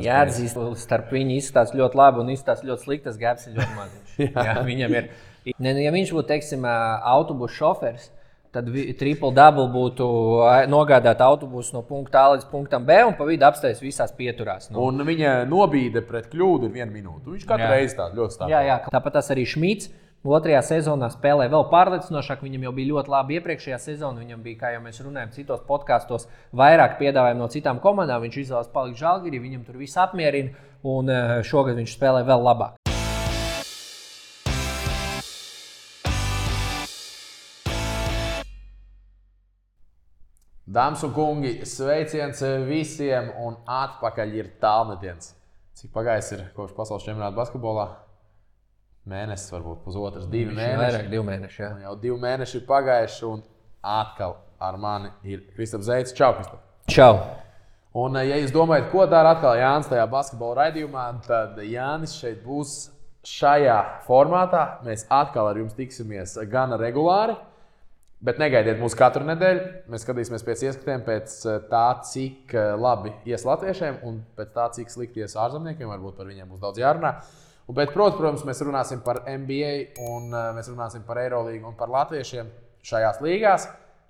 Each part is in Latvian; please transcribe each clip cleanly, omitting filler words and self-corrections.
Jāatzīst, starp viņu izskatās ļoti labi un izskatās ļoti slikti. Tas gaps ir ļoti maziņš. Jā, viņam ir. Ja viņš būtu, teiksim, autobusu šofers, tad triple-double būtu nogādāt autobusu no punkta A līdz punktam B un pa vidu apstājas visās pieturās. Un viņa nobīde pret kļūdu ir 1 minūte. Viņš katru reizi tādu ļoti stāv. Jā, tāpat tas arī Šmits. Otrajā sezonā spēlēja vēl pārliecinošāk. Viņam jau bija ļoti labi iepriekšējā sezonā. Viņam bija, kā jau mēs runājam, citos podkastos, vairāk piedāvājumu no citām komandām. Viņš izvēlējās palikt Žalgirī, viņam tur viss apmierina. Un šogad viņš spēlē vēl labāk. Dāmas un kungi, sveiciens visiem un atpakaļ ir tālmetiens. Cik pagājis ir kopš pasaules čempionāta basketbolā? Mēnesis, varbūt pusotrs, 2 mēneši. Vairāk 2 mēneši, jā. Jau 2 mēneši ir pagājuši un atkal ar mani ir Kristaps Zeits. Čau, Kristap! Čau! Un, ja jūs domājat, ko dara atkal Jānis tajā basketbola raidījumā, tad Jānis šeit būs šajā formātā. Mēs atkal ar jums tiksimies gana regulāri, bet negaidiet mūs katru nedēļu. Mēs skatīsimies pēc ieskatiem, pēc tā, cik labi ies latviešiem un pēc tā, cik slikti ies ārzemniekiem. Varbūt par viņiem būs daudz jārunā. Bet, protams, mēs runāsim par NBA, un mēs runāsim par Eirolīgu un par latviešiem šajās līgās.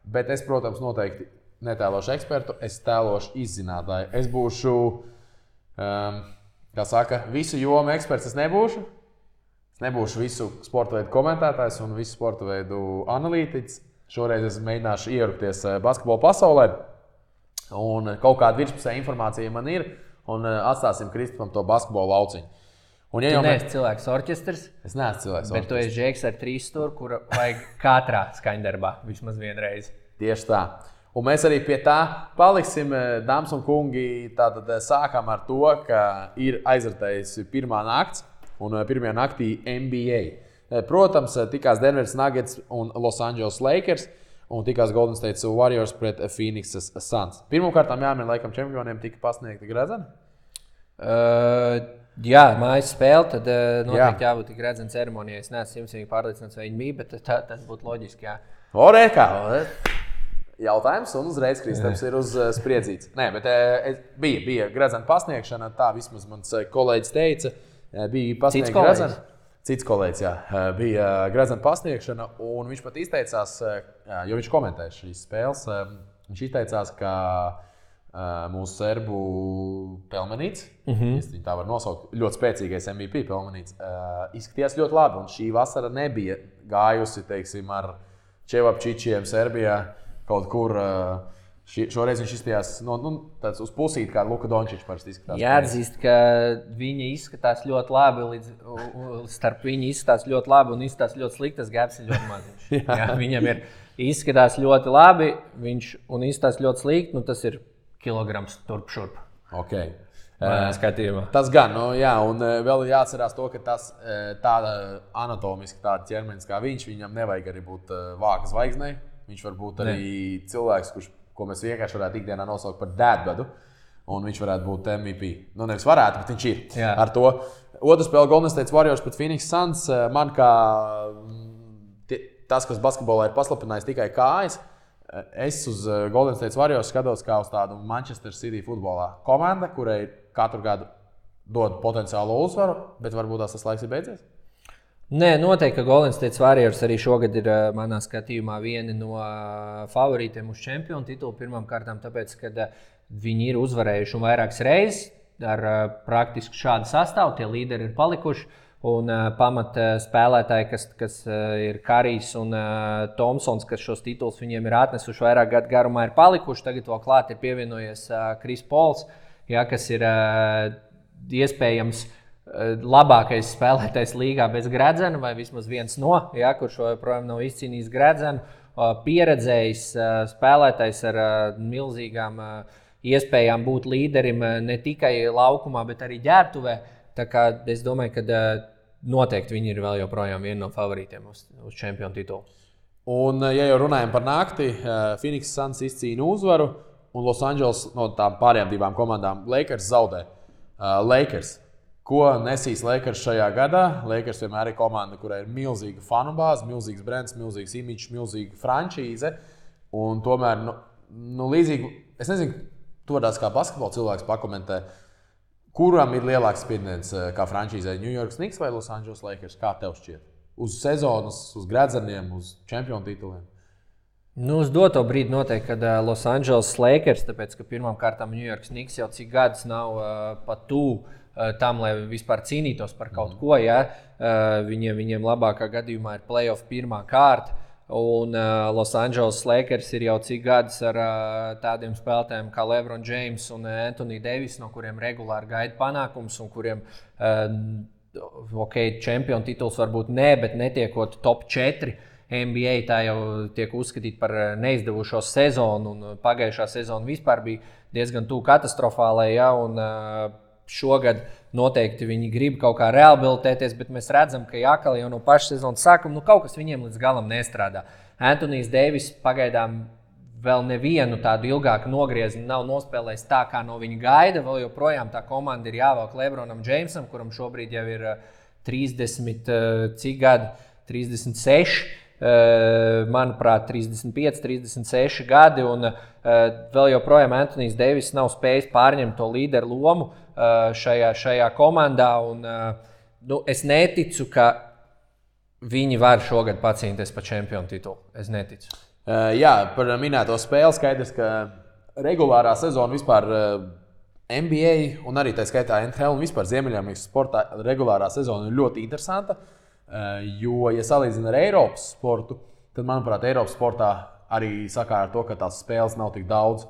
Bet es, protams, noteikti netēlošu ekspertu, es tēlošu izzinātāju. Es būšu, kā saka, visu jomu eksperts es nebūšu. Es nebūšu visu sporta veidu komentētājs un visu sporta veidu analītiķis. Šoreiz es mēģināšu ierupties basketbola pasaulē. Un kaut kāda virspusē informācija man ir, un atstāsim Kristapam to basketbola lauciņu. Tu neesi cilvēks orķestrs. Es neesmu cilvēks orķestrs. Bet tu esi džeks ar 3 stūri, kura vajag katrā skaņdarbā vismaz vienreiz. Tieši tā. Un mēs arī pie tā paliksim, dāmas un kungi. Tātad sākam ar to, ka ir aizvērtējusi pirmā nakts un pirmajā naktī NBA. Protams, tikās Denveras Nuggets un Los Angeles Lakers un tikās Golden State Warriors pret Phoenix Suns. Pirmkārt, jāmin, laikam, čempioniem tika pasniegta gredzena. Jā, mājas spēle, tad noteikti jābūt tik redzena ceremonijai. Es neesmu simtīgi pārliecināts, vai viņi bija, bet tas būtu loģiski, jā. Orēkā! Jautājums, un uzreiz Kristaps ir uz spriedzīts. Nē, bet bija gredzena pasniegšana, tā vismaz mans kolēģis teica. Bija pasniegta gredzena. Cits kolēģis, jā. Bija gredzena pasniegšana, un viņš pat izteicās, jo viņš komentēja šīs spēles, viņš izteicās, ka mūsu serbu Pelmenīts, viņi tā var nosaukt, ļoti spēcīgais MVP Pelmenīts, izskatījās ļoti labi. Un šī vasara nebija gājusi, teiksim, ar Čevapčičiem Serbijā kaut kur. Šoreiz viņš izskatījās tāds uz pusīti, kā Luka Dončičs parasti izskatās. Jāatzīst, ka viņi izskatās ļoti labi, starp viņu izskatās ļoti labi un izskatās ļoti slikti. Tas gaps ir ļoti maziņš. Jā, viņam ir izskatās ļoti labi, un izskatās ļoti slikti, tas ir kilograms turp šurp. Okay. Skatījumā. Tas gan, jā, un vēl jāatcerās to, ka tas tāda anatomiski tāda ķermenis kā viņam nevajag arī būt vāka zvaigznei. Viņš var būt arī cilvēks, ko mēs vienkārši varētu ikdienā nosaukt par dēdbedu, un viņš varētu būt MVP. Nevis varētu, bet viņš ir. Jā. Ar to. Otra spēle Golden State Warriors pret Phoenix Suns. Man kā tas, kas basketbolā ir paslapinājis tikai kājas, es uz Golden State Warriors skatos kā uz tādu Manchester City futbolā komanda, kurai katru gadu dod potenciālo uzvaru, bet varbūt tas laiks ir beidzies? Nē, noteikti, ka Golden State Warriors arī šogad ir manā skatījumā vieni no favorītiem uz čempionu titulu. Pirmkārt, tāpēc, ka viņi ir uzvarējuši vairākas reizes ar praktiski šādu sastāvu, tie līderi ir palikuši. Un pamat spēlētāji, kas ir Karijs un Tomsons, kas šos titulus viņiem ir atnesuši vairāk gadu garumā, ir palikuši. Tagad vēl klāt ir pievienojies Kris Pols, kas ir iespējams labākais spēlētājs līgā bez gredzena, vai vismaz viens no, kurš joprojām nav izcīnījis gredzenu. Pieredzējis spēlētājs ar milzīgām iespējām būt līderim ne tikai laukumā, bet arī ģērbtuvē. Tā kā es domāju, ka noteikti viņi ir vēl joprojām viena no favorītiem uz čempionu titulu. Un, ja jau runājam par nakti, Phoenix Suns izcīna uzvaru, un Los Angeles no tām pārējām divām komandām Lakers zaudē. Lakers. Ko nesīs Lakers šajā gadā? Lakers vienmēr ir komanda, kurai ir milzīga fanu bāze, milzīgs brands, milzīgs imidžs, milzīga frančīze. Un tomēr, līdzīgi, es nezinu, to tās kā basketbola cilvēks pakomentē. Kuram ir lielāks spiediens kā frančīzē? New York Knicks vai Los Angeles Lakers? Kā tev šķiet? Uz sezonas, uz gredzeniem, uz čempionu tituliem? Nu, uz doto brīdi noteikti, kad Los Angeles Lakers, tāpēc, ka pirmām kārtām New York Knicks jau cik gadus nav pat tuvu tam, lai vispār cīnītos par kaut ko. Ja? Viņiem labākā gadījumā ir playoff pirmā kārta. Un Los Angeles Lakers ir jau cik gadus ar tādiem spēlētājiem kā LeBron James un Anthony Davis, no kuriem regulāri gaida panākums un kuriem čempionu tituls varbūt ne, bet netiekot top 4. NBA tā jau tiek uzskatīta par neizdevušos sezonu, un pagājušā sezona vispār bija diezgan tuvu katastrofālai. Ja, un šogad noteikti viņi grib kaut kā rehabilitēties, bet mēs redzam, ka Jākal jau no paša sezonas sākuma kaut kas viņiem līdz galam nestrādā. Anthony Davis pagaidām vēl nevienu tādu ilgāku nogriezienu nav nospēlējis tā, kā no viņa gaida. Vēl joprojām tā komanda ir jāvelk LeBronam Jamesam, kuram šobrīd jau ir 30, cik gadi? 36. Manuprāt, 35, 36 gadi, un vēl joprojām Anthony Davis nav spējis pārņemt to līderu lomu šajā komandā. Un, es neticu, ka viņi var šogad pacīnīties par čempionu titulu. Es neticu. Jā, par minēto spēli skaidrs, ka regulārā sezona vispār NBA un arī tā skaitā NHL un vispār Ziemeļamerikas sportā regulārā sezona ir ļoti interesanta. Jo, ja salīdzina ar Eiropas sportu, tad, manuprāt, Eiropas sportā arī sakāra ar to, ka tās spēles nav tik daudz.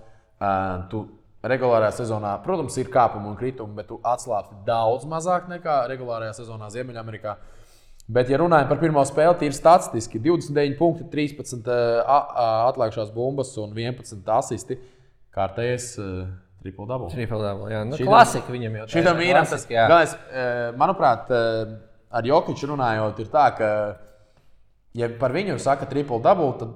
Tu regulārajā sezonā, protams, ir kāpumi un kritumi, bet tu atslābsti daudz mazāk nekā regulārajā sezonā Ziemeļamerikā. Bet, ja runājam par pirmo spēli, tīri statistiski 29 punkti, 13 atlikušās bumbas un 11 asisti. Kārtējais triple-double. Triple-double, jā. Nu, klasika viņam jau tā. Šitam vīram tas, galvenais, manuprāt, ar Jokiču runājot, ir tā, ka, ja par viņu saka triple-double, tad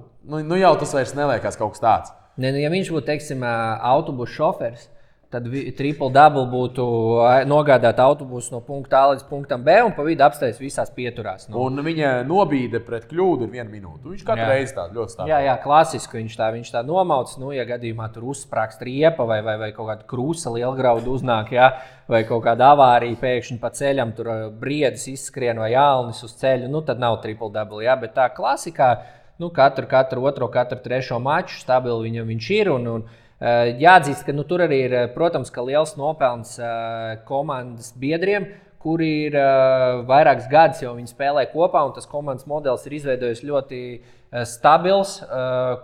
nu jau tas vairs neliekas kaut kas tāds. Ne, ja viņš būtu, teiksim, autobusu šoferis, tad triple-double būtu nogādāt autobusu no punkta A līdz punktam B un pa vidu apstājas visās pieturās. Nu. Un viņa nobīde pret kļūdu ir 1 minūte. Viņš katru reizi tā ļoti stāv. Jā, klasiski viņš tā nomauc. Nu, ja gadījumā tur uzsprāgst riepa vai kaut kāda krūsa lielgrauda uznāk, jā, vai kaut kāda avārija pēkšņi pa ceļam, tur briedis izskrien vai ālnis uz ceļu, nu tad nav triple-double. Jā, bet tā klasikā, nu, katru otro, katru trešo maču stabili viņš ir un jāatzīst, ka tur arī ir, protams, ka liels nopelns komandas biedriem, kuri ir vairākus gadus jau viņi spēlē kopā, un tas komandas modelis ir izveidojis ļoti stabils,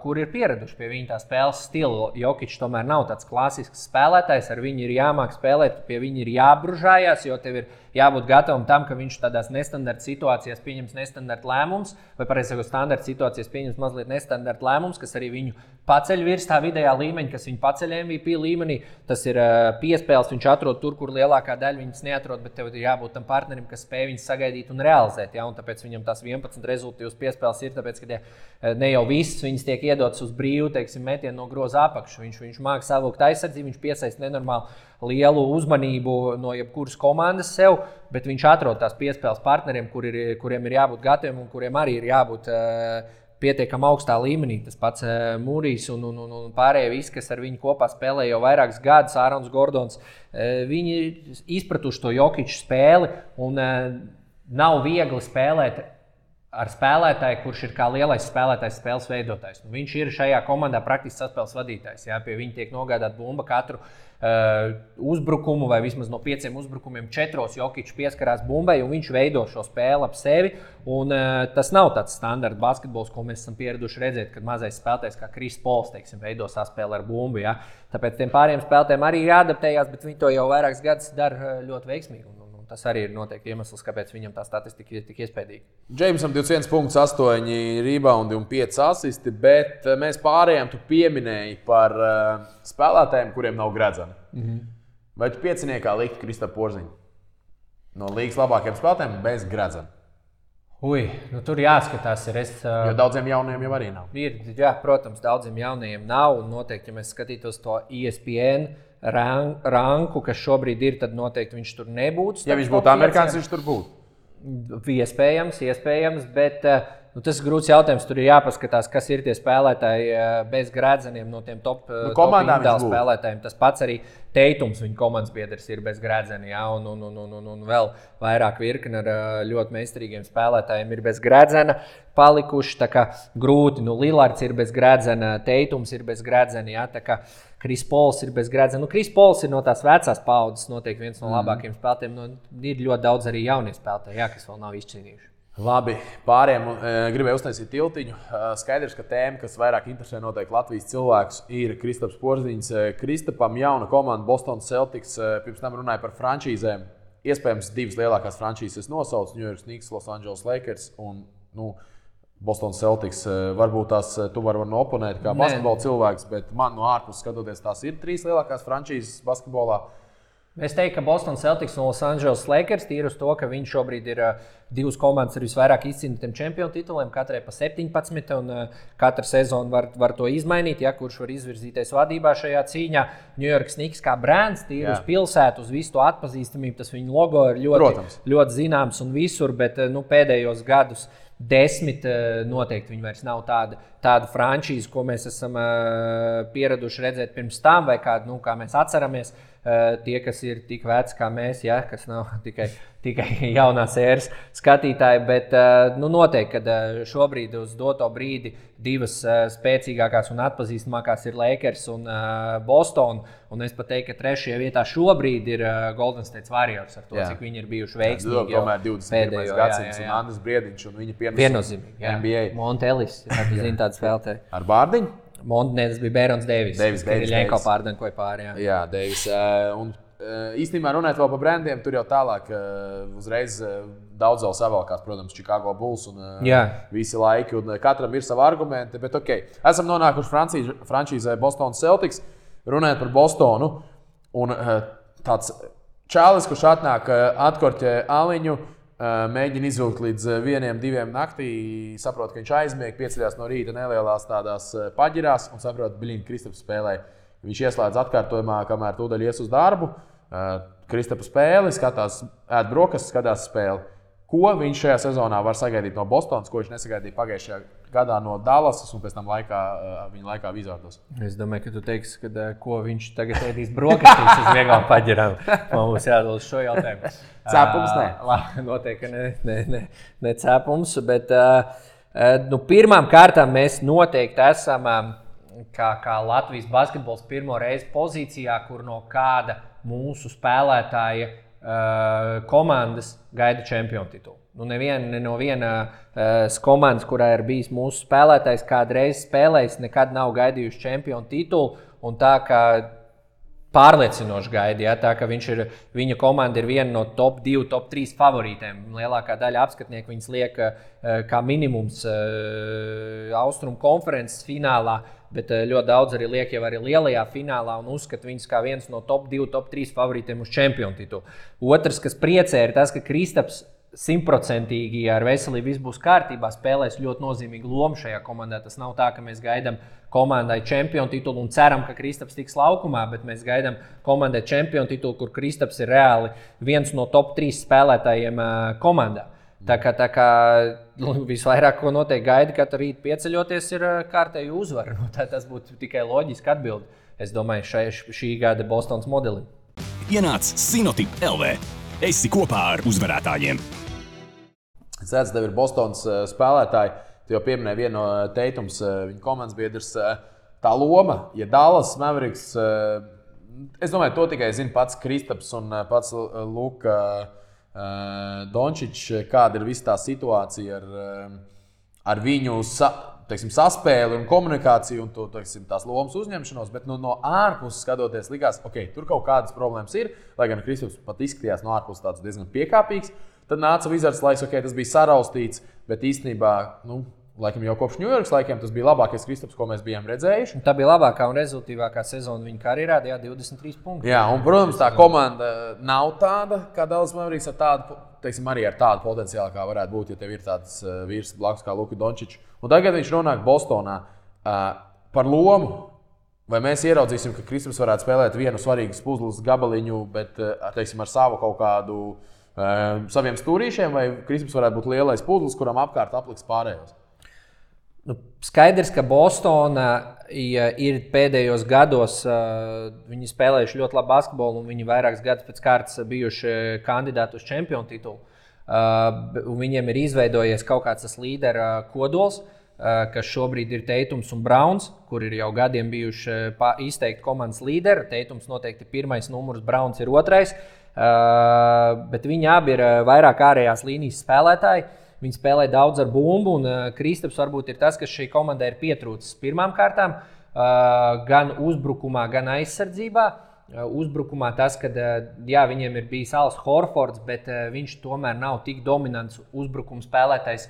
kur ir pieraduši pie viņa tā spēles stila. Jokičs tomēr nav tāds klasisks spēlētājs, ar viņu ir jāmāk spēlēt, pie viņa ir jābružājās, jo tev ir jābūt gatavam tam, ka viņš tādās nestandarta situācijās pieņems nestandarta lēmums, vai pareizāk standarta situācijās pieņems mazliet nestandarta lēmums, kas arī viņu paceļ virs tā vidējā līmeņa, kas viņu paceļ MVP līmenī. Tas ir piespēles, viņš atrod tur, kur lielākā daļa viņas neatrod, bet tev ir jābūt tam partnerim, kas spēj viņas sagaidīt un realizēt. Ja? Un tāpēc viņam tās 11 rezultātus piespēles ir, tāpēc, ka ne jau visas viņas tiek iedotas uz brīvu, teiksim, metienu no groza apakšu. Viņš māca savukt aizsardzību, viņš piesaista nenormāli lielu uzmanību no jebkuras komandas sev, bet viņš atrod tās piespēles partneriem, kuriem ir jābūt gataviem un kuriem arī ir jābūt pietiekami augstā līmenī. Tas pats Mūrijs un pārējie visi, kas ar viņu kopā spēlē jau vairākus gadus, Ārons Gordons, viņi izpratuši to Jokiču spēli un nav viegli spēlēt ar spēlētāju, kurš ir kā lielais spēlētājs, spēles veidotājs. Viņš ir šajā komandā praktiski saspēles vadītājs. Jā, pie viņa tiek nogādāta bumba katru uzbrukumu, vai vismaz no 5 uzbrukumiem 4 Jokičs pieskarās bumbai, un viņš veido šo spēli ap sevi. Un, tas nav tāds standarta basketbols, ko mēs esam pieraduši redzēt, kad mazais spēlētājs kā Kris Pols, teiksim, veido saspēli ar bumbu. Jā. Tāpēc tiem pārējiem spēlētājiem arī ir jāadaptējās, bet viņi to jau vairākus gadus dara ļoti veiksmīgi. Tas arī ir noteikti iemesls, kāpēc viņam tā statistika ir tik iespējīga. Jamesam 21 punkts, 8 rebounди un 5 asisti, bet mēs pārējām tu pieminēji par spēlētājiem, kuriem nav gredzena. Vai tu pieciniekā likt Kristapu Porziņu? No līgas labākajiem spēlētājiem bez gredzena. Tur jāskatās. Jo daudziem jauniem jau arī nav. Jā, protams, daudziem jaunajiem nav. Un noteikti, ja mēs skatītos to ESPN ranku, kas šobrīd ir, tad noteikti viņš tur nebūtu. Ja viņš būtu amerikānis, viņš tur būtu. Iespējams, bet tas ir grūts jautājums. Tur ir jāpaskatās, kas ir tie spēlētāji bez Grēdzeniem no tiem top spēlētājiem. Tas pats arī Teitums, viņa komandas biedrs, ir bez Grēdzena. Ja? Un vēl vairāk virkni ar ļoti meistarīgiem spēlētājiem ir bez Grēdzena palikuši. Tā kā grūti. Lillards ir bez Grēdzena, Teitums ir bez Grēdzena. Ja? Tā kā Kris Pols ir bez Grēdzena. Kris Pols ir no tās vecās paudzes, noteikti viens no labākajiem spēlētājiem. Ir ļoti daudz arī jaunie spēlētāji, kas vēl nav izcīnījuši. Labi, pāriem gribēju uztaisīt tiltiņu. Skaidrs, ka tēma, kas vairāk interesē noteikti Latvijas cilvēkus, ir Kristaps Porziņš. Kristapam jauna komanda Boston Celtics, pirms tam runāja par frančīzēm. Iespējams, divas lielākās frančīzes nosauc New York Knicks, Los Angeles Lakers un Boston Celtics. Varbūt tās tu vari oponēt kā basketbola cilvēks, bet man no ārpuses skatoties, tās ir trīs lielākās frančīzes basketbolā. Es teiktu, ka Boston Celtics un Los Angeles Lakers tīri uz to, ka viņi šobrīd ir divas komandas ar visvairāk izcīnītiem čempionu tituliem, katrai pa 17, un katra sezona var to izmainīt, kurš var izvirzīties vadībā šajā cīņā. New York Knicks kā brands, tīri uz pilsētu, uz visu to atpazīstamību, tas viņu logo ir ļoti zināms un visur, bet pēdējos gadus 10 noteikti viņi vairs nav tāda frančīze, ko mēs esam pieraduši redzēt pirms tam, vai kādu, kā mēs atceramies. Tie, kas ir tik veci kā mēs, kas nav tikai jaunās ēras skatītāji, bet noteikti, ka šobrīd uz doto brīdi divas spēcīgākās un atpazīstamākās ir Lakers un Boston, un es pat teiktu, ka trešajā vietā šobrīd ir Golden State Warriors ar to, cik viņi ir bijuši veiksmīgi. Tomēr 21. gadsimts un Andris Briediņš un viņa piennozīmīgi. NBA. Montelis, zina tādu spēlētāju. Ar Bārdiņu? Tas bija Bērons Deivis. Ļenko pārdankoja pāri. Jā, Deivis. Un īstenībā runājot vēl par brandiem, tur jau tālāk uzreiz daudz vēl savalkās, protams, Chicago Bulls un visi laiki, un katram ir savi argumenti, bet esam nonākuši frančīzē Boston Celtics, runājot par Bostonu, un tāds čālis, kurš atnāk atkorķē aliņu, mēģina izvilkt līdz 1-2 naktī, saprot, ka viņš aizmieg, pieceļās no rīta nelielās tādās paģirās un saprot, ka Kristaps spēlē. Viņš ieslēdz atkārtojumā, kamēr tūdaļ ies uz darbu. Kristapa spēli, skatās, ēd brokastis, skatās spēli. Ko viņš šajā sezonā var sagaidīt no Bostonas, ko viņš nesagaidīja pagājušajā gadā no Dallasas un pēc tam viņa laikā Wizardos? Es domāju, ka tu teiksi, ka ko viņš tagad ēdīs brokastīs uz vieglām paģirām. Man būs jādod uz šo jautājumu. Cēpums ne? Noteikti ne cēpums, bet pirmām kārtām mēs noteikti esam kā Latvijas basketbols pirmo reizi pozīcijā, kur no kāda mūsu spēlētāja komandas gaida čempionu titulu. Ne no vienas komandas, kurā ir bijis mūsu spēlētājs, kādreiz spēlējis, nekad nav gaidījuši čempionu titulu. Un tā kā pārliecinoši gaida, tā ka viņa komanda ir viena no top 2, top 3 favorītēm. Lielākā daļa apskatnieku viņas liek kā minimums Austrumu konferences finālā, bet ļoti daudz arī liek jau arī lielajā finālā un uzskata viņus kā viens no top 2, top 3 favorītiem uz čempionu titulu. Otrs, kas priecē, ir tas, ka Kristaps 100% ar veselību viss būs kārtībā, spēlēs ļoti nozīmīgu lomu šajā komandā. Tas nav tā, ka mēs gaidām komandai čempionu titulu un ceram, ka Kristaps tiks laukumā, bet mēs gaidām komandai čempionu titulu, kur Kristaps ir reāli viens no top 3 spēlētājiem komandā. Tā kā visvairāk, ko noteikti gaida, katru rītu pieceļoties, ir kārtēju uzvaru. Tas būtu tikai loģiski atbildi, es domāju, šī gada Bostonas modelim. Ienāc Sinotip LV. Esi kopā ar uzvarētājiem. Sēdz, tev ir Bostonas spēlētāji. Tu jau pieminēji vienu no Teitums, viņa komandas biedrs. Tā loma, ja Dallas Mavericks, es domāju, to tikai zina pats Kristaps un pats Luka Dončičs, kāda ir visa tā situācija ar viņu saspēli un komunikāciju un to, tās lomas uzņemšanos, bet no ārpuses skatoties likās, tur kaut kādas problēmas ir, lai gan Kristaps pat izskatījās no ārpuses tāds diezgan piekāpīgs. Tad nāca Wizards laiks, tas bija saraustīts, bet īstenībā, laikam jau kopš New Yorkas laikiem tas bija labākais Kristaps, ko mēs bijām redzējuši. Tā bija labākā un rezultīvākā sezona viņa karjerā, 23 punkti. Jā, un, protams, tā komanda nav tāda, kā Dallas Mavericks ar tādu, arī ar tādu potenciālu, kā varētu būt, ja tev ir tāds vīrs blakus kā Luka Dončičs. Un tagad viņš nonāk Bostonā par lomu. Vai mēs ieraudzīsim, ka Kristaps varētu spēlēt vienu svarīgu puzles gabaliņu, bet ar savu kaut kādu saviem stūrīšiem, vai Kristaps varētu būt lielais puzles, kuram apkārt apliks pārējos? Skaidrs, ka Bostona ir pēdējos gados, viņi spēlējuši ļoti labu basketbolu, un viņi vairākus gadus pēc kārtas bijuši kandidāti uz čempionu titulu. Viņiem ir izveidojies kaut kāds tas līdera kodols, kas šobrīd ir Teitums un Browns, kur ir jau gadiem bijuši izteikti komandas līderi. Teitums noteikti ir pirmais numurs, Browns ir otrais, bet viņi abi ir vairāk ārējās līnijas spēlētāji. Viņi spēlē daudz ar bumbu, un Kristaps varbūt ir tas, kas šī komandai ir pietrūcis pirmām kārtām, gan uzbrukumā, gan aizsardzībā. Uzbrukumā tas, ka viņiem ir bijis Als Horfords, bet viņš tomēr nav tik dominants uzbrukuma spēlētājs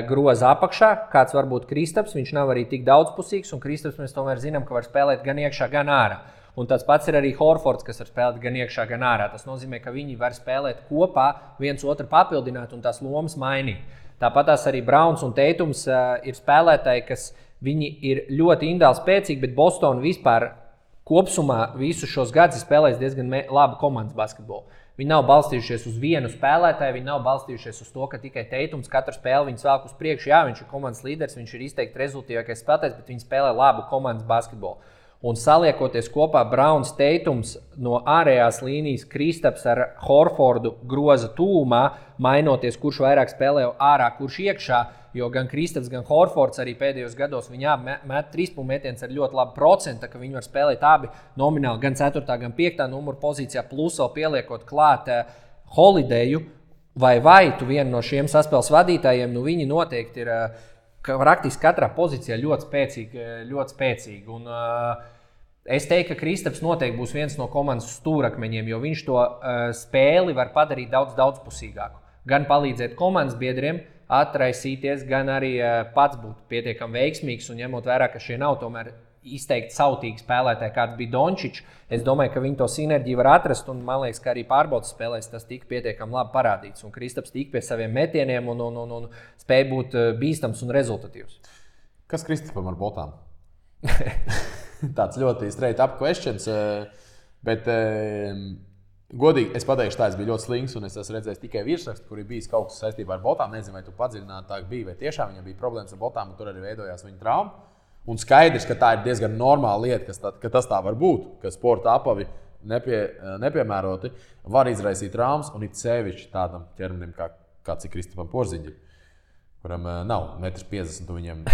groza apakšā, kāds var būt Kristaps. Viņš nav arī tik daudzpusīgs, un Kristaps mēs tomēr zinām, ka var spēlēt gan iekšā, gan ārā. Un tas pats ir arī Horfords, kas var spēlēt gan iekšā, gan ārā. Tas nozīmē, ka viņi var spēlēt kopā, viens otru papildināt un tās lomas mainīt. Tāpat arī Browns un Teitums ir spēlētāji, kas viņi ir ļoti individuāli spēcīgi, bet Bostona vispār kopsumā visus šos gadus spēlēs diezgan labu komandas basketbolu. Viņi nav balstījušies uz vienu spēlētāju, viņi nav balstījušies uz to, ka tikai Teitums katru spēli viņus velk uz priekšu. Jā, viņš ir komandas līderis, viņš ir izteikti rezultātīvākais spēlētājs, bet viņi spēlē labu komandas basketbolu. Un saliekoties kopā Browns, Teitums no ārējās līnijas, Kristaps ar Horfordu groza tūmā, mainoties, kurš vairāk spēlē ārā, kurš iekšā, jo gan Kristaps, gan Horfords arī pēdējos gados viņi met trīspunktu metienus ar ļoti labu procentu, ka viņi var spēlēt abi nomināli gan 4. gan 5. numuru pozīcijā, plus vēl pieliekot klāt Holidayu vai tu vienu no šiem saspēles vadītājiem, viņi noteikti ir praktiski katrā pozīcijā ļoti spēcīgi. Un, es teiktu, ka Kristaps noteikti būs viens no komandas stūrakmeņiem, jo viņš to spēli var padarīt daudzpusīgāku. Gan palīdzēt komandas biedriem atraisīties, gan arī pats būt pietiekami veiksmīgs. Un ņemot vērā, ka šie nav tomēr izteikti sautīgi spēlētāji, kāds bija Dončičs, es domāju, ka viņi to sinerģiju var atrast, un man liekas, ka arī pārbaudas spēlēs tas tika pietiekami labi parādīts. Un Kristaps tika pie saviem metieniem un spēja būt bīstams un rezultatīvs. Kas Kristapam ar botām? Tāds ļoti straight up questions, bet godīgi es pateikšu tā, es biju ļoti slings, un es esmu redzējis tikai virsrakstu, kur ir bijis kaut kas saistībā ar botām. Nezinu, vai tu padziļinātāk bija, vai tiešām viņam bija problēmas ar botām, un tur arī veidojās viņa trauma. Un skaidrs, ka tā ir diezgan normāla lieta, ka tas tā var būt, ka sporta apavi nepiemēroti var izraisīt traumas, un it sevišķi tādam ķermenim, kāds ir Kristapam Porziņģim, kuram nav 1,50 m, viņam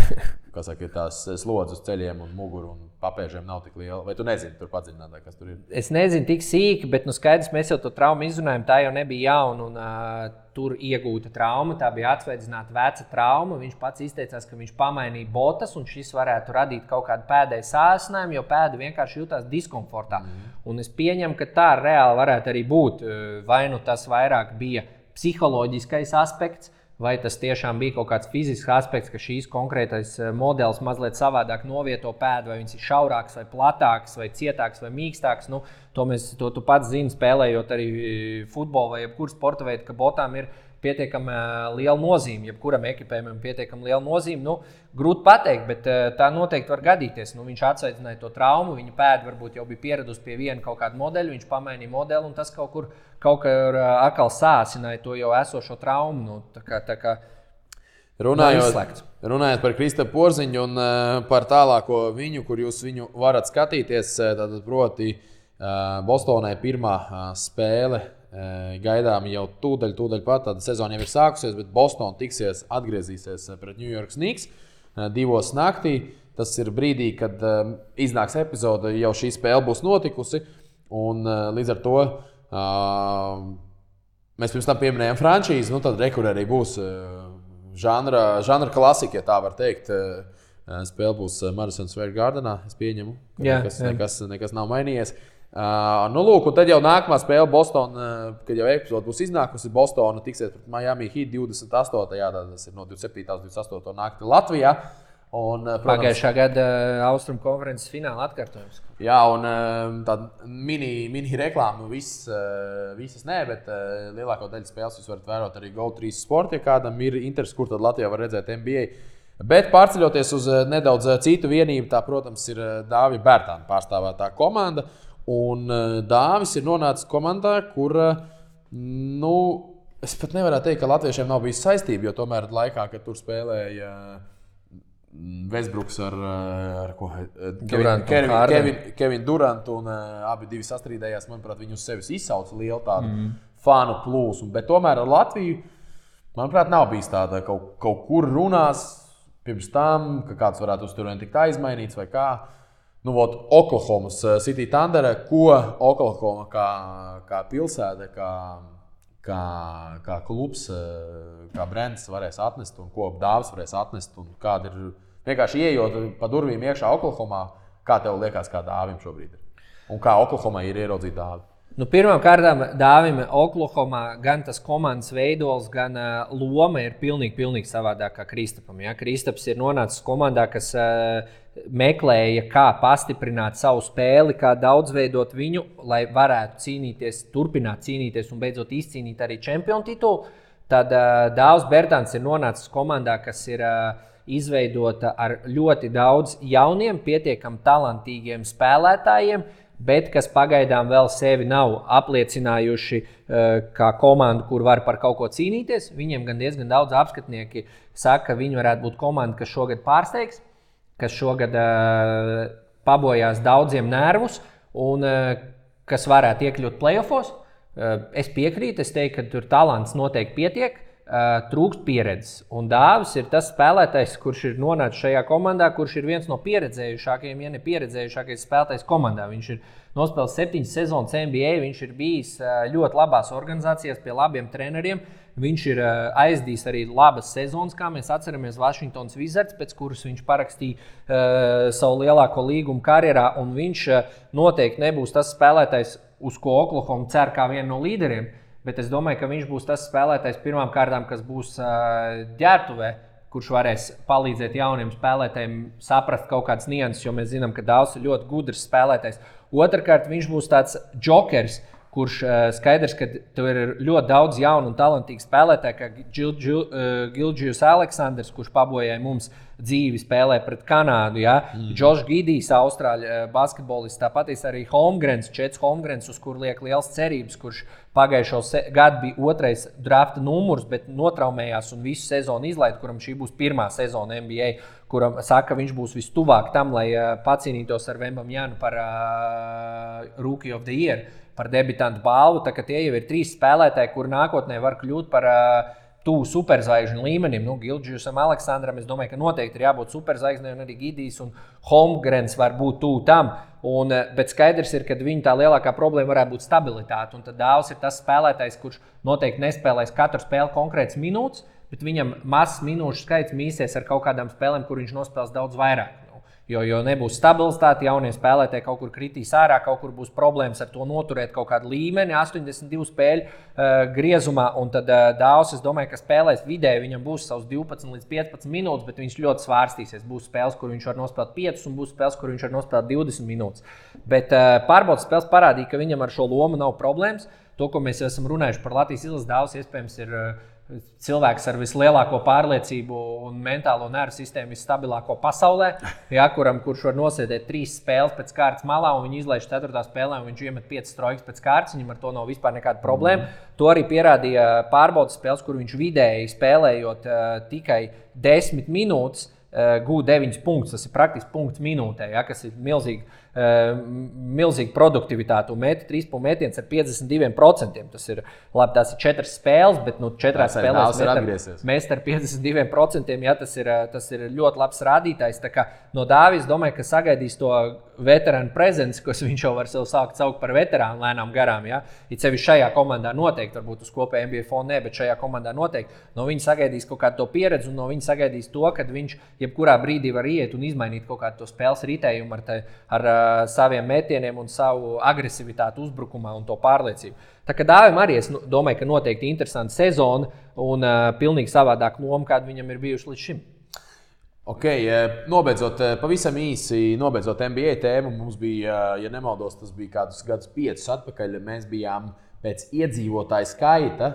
tās slodzes uz ceļiem un muguru un papēžiem nav tik liela. Vai tu nezini, tur padziļinātāk, kas tur ir? Es nezinu tik sīki, bet skaidrs, mēs jau to traumu izrunājam, tā jau nebija jauna, un tur iegūta trauma, tā bija atsveidzināta veca trauma. Viņš pats izteicās, ka viņš pamainīja botas, un šis varētu radīt kaut kādu pēdēju sāsinājumu, jo pēda vienkārši jutās diskomfortā. Un es pieņemu, ka tā reāli varētu arī būt. Vai nu tas vairāk bija psiholoģiskais aspekts, vai tas tiešām bija kaut kāds fizisks aspekts, ka šīs konkrētais modelis mazliet savādāk novieto pēdu, vai viņš ir šaurāks, vai platāks, vai cietāks, vai mīkstāks. To tu pats zini, spēlējot arī futbolu vai jebkuru sporta veidu, ka botām ir pietiekami liela nozīme, jebkuram ekipējumam pietiekami liela nozīme. Grūti pateikt, bet tā noteikti var gadīties. Viņš atsveicināja to traumu, viņa pēda varbūt jau bija pieradusi pie viena kaut kāda modeļa, viņš pamainīja modeli, un tas kaut kur atkal sāsināja to jau esošo traumu. Runājot par Kristapu Porziņu un par tālāko viņu, kur jūs viņu varat skatīties, tad proti Bostonai pirmā spēle gaidām jau tūdaļ pat, tāda sezona jau ir sākusies, bet Bostona atgriezīsies pret New York Knicks 2 naktī. Tas ir brīdī, kad iznāks epizode, jau šī spēle būs notikusi, un līdz ar to mēs pirms tam pieminējām frančīzi, tad rekur arī būs žanra klasika, ja tā var teikt. Spēle būs Madison Square Gardenā, es pieņemu, ka nekas nav mainījies. Lūk, un tad jau nākamā spēle Bostona, kad jau epizode būs iznākusi, Bostona tiksies pret Miami Heat 28. Tas ir no 27. līdz 28. naktī Latvijā. Pagājušā gada Austrumu konferences fināla atkārtojums. Jā, un tāda mini reklāma visas nē, bet lielāko daļu spēles jūs varat vērot arī Go3 Sport, ja kādam ir interesi, kur tad Latvijā var redzēt NBA. Bet pārceļoties uz nedaudz citu vienību, tā, protams, ir Dāvija Bērtāna pārstāvētā komanda. Un Dāvis ir nonācis komandā, kur, es pat nevaru teikt, ka latviešiem nav bijis saistība, jo tomēr laikā, kad tur spēlēja Westbrooks ar Kevinu Durantu un abi divi sastrīdējās. Manuprāt, viņi uz sevis izsauca lielu tādu fanu plūsmu. Bet tomēr ar Latviju, manuprāt, nav bijis tāda kaut kur runās pirms tam, ka kāds varētu uz turieni tikt aizmainīts vai kā. Oklahomas City Thunder, ko Oklahoma kā pilsēta, kā klubs, kā brands varēs atnest un ko Dāvis varēs atnest. Un kāda ir vienkārši ieejot pa durvīm iekšā Oklahomā, kā tev liekas, kā Dāvim šobrīd ir? Un kā Oklahomā ir ieraudzīt Dāvi? Pirmām kārtām Dāvim Oklahomā gan tas komandas veidols, gan loma ir pilnīgi savādāk kā Kristapam. Ja? Kristaps ir nonācis komandā, kas meklēja, kā pastiprināt savu spēli, kā daudzveidot viņu, lai varētu turpināt cīnīties un beidzot izcīnīt arī čempionu titulu. Tad Dāvs Bertāns ir nonācis komandā, kas ir izveidota ar ļoti daudz jauniem, pietiekami talantīgiem spēlētājiem, bet kas pagaidām vēl sevi nav apliecinājuši kā komandu, kur var par kaut ko cīnīties. Viņiem gan diezgan daudz apskatnieki saka, ka viņi varētu būt komanda, kas šogad pārsteigs, kas šogad pabojās daudziem nervus un kas varētu iekļūt playoffos. Es piekrītu, es teiktu, ka tur talants noteikti pietiek. Trūkst pieredzes. Un Dāvis ir tas spēlētājs, kurš ir nonācis šajā komandā, kurš ir viens no pieredzējušākajiem, ja ne pieredzējušākais spēlētājs komandā. Viņš ir nospēlējis 7 sezonas NBA, viņš ir bijis ļoti labās organizācijās pie labiem treneriem. Viņš ir aizdījis arī labas sezonas, kā mēs atceramies Washingtons Wizards, pēc kuras viņš parakstīja savu lielāko līgumu karjerā. Un viņš noteikti nebūs tas spēlētājs, uz ko Oklahoma cer kā vienu no līderiem. Bet es domāju, ka viņš būs tas spēlētājs pirmām kārtām, kas būs ģērbtuvē, kurš varēs palīdzēt jauniem spēlētājiem saprast kaut kādas nianses, jo mēs zinām, ka Dāvs ir ļoti gudrs spēlētājs. Otrakārt, viņš būs tāds džokers, kurš skaidrs, ka tur ir ļoti daudz jaunu un talantīgu spēlētāju, kā Gilgeous Aleksandrs, kurš pabojāja mums dzīvi spēlē pret Kanādu. Ja? Džošs Gidijs, austrāļu basketbolists, tāpat arī Čets Holmgrens, uz kur liek liels cerības, kurš pagājušo gadu bija 2. drafta numurs, bet notraumējās un visu sezonu izlaid, kuram šī būs 1. sezona NBA, kuram saka, viņš būs vistuvāk tam, lai pacīnītos ar Vembamjanu par Rookie of the Year, par debitantu balvu. Tā, tie jau ir 3 spēlētāji, kuri nākotnē var kļūt par tuvu superzvaigžņu līmenim. Gilgeousam Aleksandram, es domāju, ka noteikti ir jābūt superzvaigznei, un arī Gidijs un Holmgrens var būt tuvu tam. Bet skaidrs ir, ka viņa tā lielākā problēma varētu būt stabilitāte. Un tad Dāvs ir tas spēlētājs, kurš noteikti nespēlēs katru spēli konkrēts minūtes, bet viņam mazs minūšu skaits mīsies ar kaut kādām spēlēm, kur viņš nospēlēs daudz vairāk. Jo nebūs stabilitāte, jaunie spēlētāji kaut kur kritīs ārā, kaut kur būs problēmas ar to noturēt kaut kādu līmeni, 82 spēļu griezumā. Un tad Dāvs, es domāju, ka spēlēs vidēji, viņam būs savs 12 līdz 15 minūtes, bet viņš ļoti svārstīsies. Būs spēles, kur viņš var nospēlēt 5, un būs spēles, kur viņš var nospēlēt 20 minūtes. Bet pārbaudas spēles parādīja, ka viņam ar šo lomu nav problēmas. To, ko mēs esam runājuši par Latvijas izlases, Dāvs iespējams ir cilvēks ar vislielāko pārliecību un mentālo nervu sistēmu visstabilāko pasaulē, ja, kurš var nosēdēt 3 spēles pēc kārtas malā, un viņi izlaiž 4. spēlē, un viņš iemet 5 trojkas pēc kārtas. Viņam ar to nav vispār nekāda problēma. To arī pierādīja pārbaudas spēles, kur viņš vidēji spēlējot tikai 10 minūtes, gūda 9 punktus. Tas ir praktiski punkts minūtē, ja, kas ir milzīga produktivitāte. Un meta 3 punktu metiens ar 52%. Tas ir labi, tās ir 4 spēles, bet 4 spēlēs mest ar 52%. Ja, tas ir ļoti labs rādītājs. Tā kā no Dāvis domāju, ka sagaidīs to veterānu prezenci, kas viņš jau var sev sākt saukt par veterānu lēnām garām. Ja. It sevišķi šajā komandā noteikti, varbūt uz kopēja NBA fona, bet šajā komandā noteikti. No viņa sagaidīs kaut kādu to pieredzi, un no viņa sagaidīs to, ka viņš jebkurā brīdī var iet un izmainīt kaut kādu to spēles ritējumu ar saviem metieniem un savu agresivitāti uzbrukumā un to pārliecību. Tā kā Dāvim arī es domāju, ka noteikti interesanta sezona un pilnīgi savādāk loma, kāda viņam ir bijuši līdz šim. Ok, nobeidzot, pavisam īsi nobeidzot NBA tēmu, mums bija, ja nemaldos, tas bija kādus gadus 5 atpakaļ, mēs bijām pēc iedzīvotāju skaita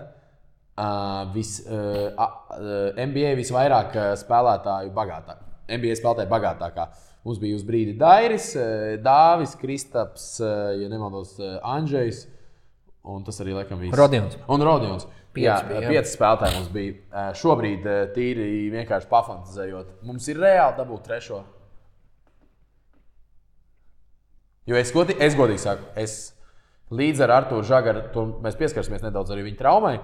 NBA visvairāk spēlētāju bagātāk. NBA spēlētāju bagātākā. Mums bija uz brīdi Dairis, Dāvis, Kristaps, ja nemaldos, Andžejs Un tas arī laikam viss. Rodions. Un Rodions. Jā, 5 spēlētāji mums bija. Šobrīd tīri vienkārši pafantazējot. Mums ir reāli dabūt 3. Jo es godīgi saku, līdz ar Arturu Žagaru, mēs pieskarsimies nedaudz arī viņa traumai.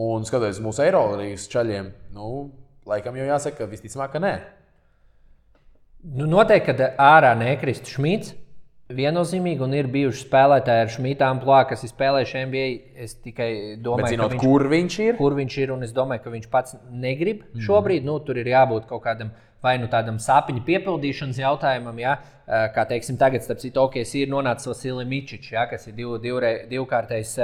Un skatoties mūsu Eirolīgas čaļiem, laikam jau jāsaka, ka visticamāk, ka nē. Noteikti, kad ārā nekristu Šmits. Viennozīmīgi, un ir bijuši spēlētāji ar Šmita amplua, kas ir spēlējuši NBA. Es tikai domāju, bet zinot, kur viņš ir, un es domāju, ka viņš pats negrib šobrīd. Tur ir jābūt kaut kādam vai tādam sapņu piepildīšanas jautājumam, ja? Kā teiksim, tagad, starp citu, OKC ir nonācis Vasilij Mičičs, ja? Kas ir divkārtais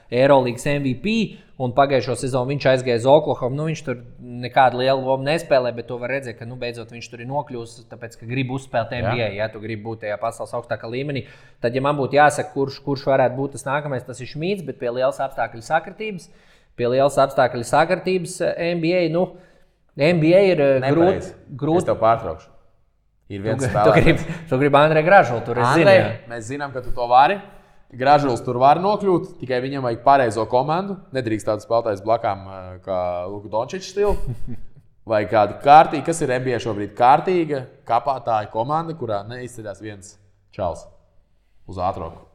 Eirolīgas MVP, un pagājušo sezonu viņš aizgāja uz Oklahomu. Viņš tur nekādu lielu lomu nespēlē, bet to var redzēt, ka beidzot viņš tur ir nokļuvis, tāpēc, ka grib uzspēlēt NBA, ja tu gribi būt tajā pasaules augstākā līmenī. Tad, ja man būtu jāsaka, kurš varētu būt tas nākamais, tas ir Šmits, bet pie lielas apstākļu sakritības NBA, NBA ir grūti. Es tev pārtraukšu. Ir viens spēlētājs. Tu gribi Andreju Gražulu, tur es zinu. Mēs zinām, ka tu to vari. Gražuls tur var nokļūt, tikai viņam vajag pareizo komandu. Nedrīkst tādu spēlētājs blakām kā Luka Dončičs stilu. Vai kādu kārtīgu, kas ir NBA šobrīd kārtīga, kapātāja komanda, kurā neizceļās viens čals uz ātrumu.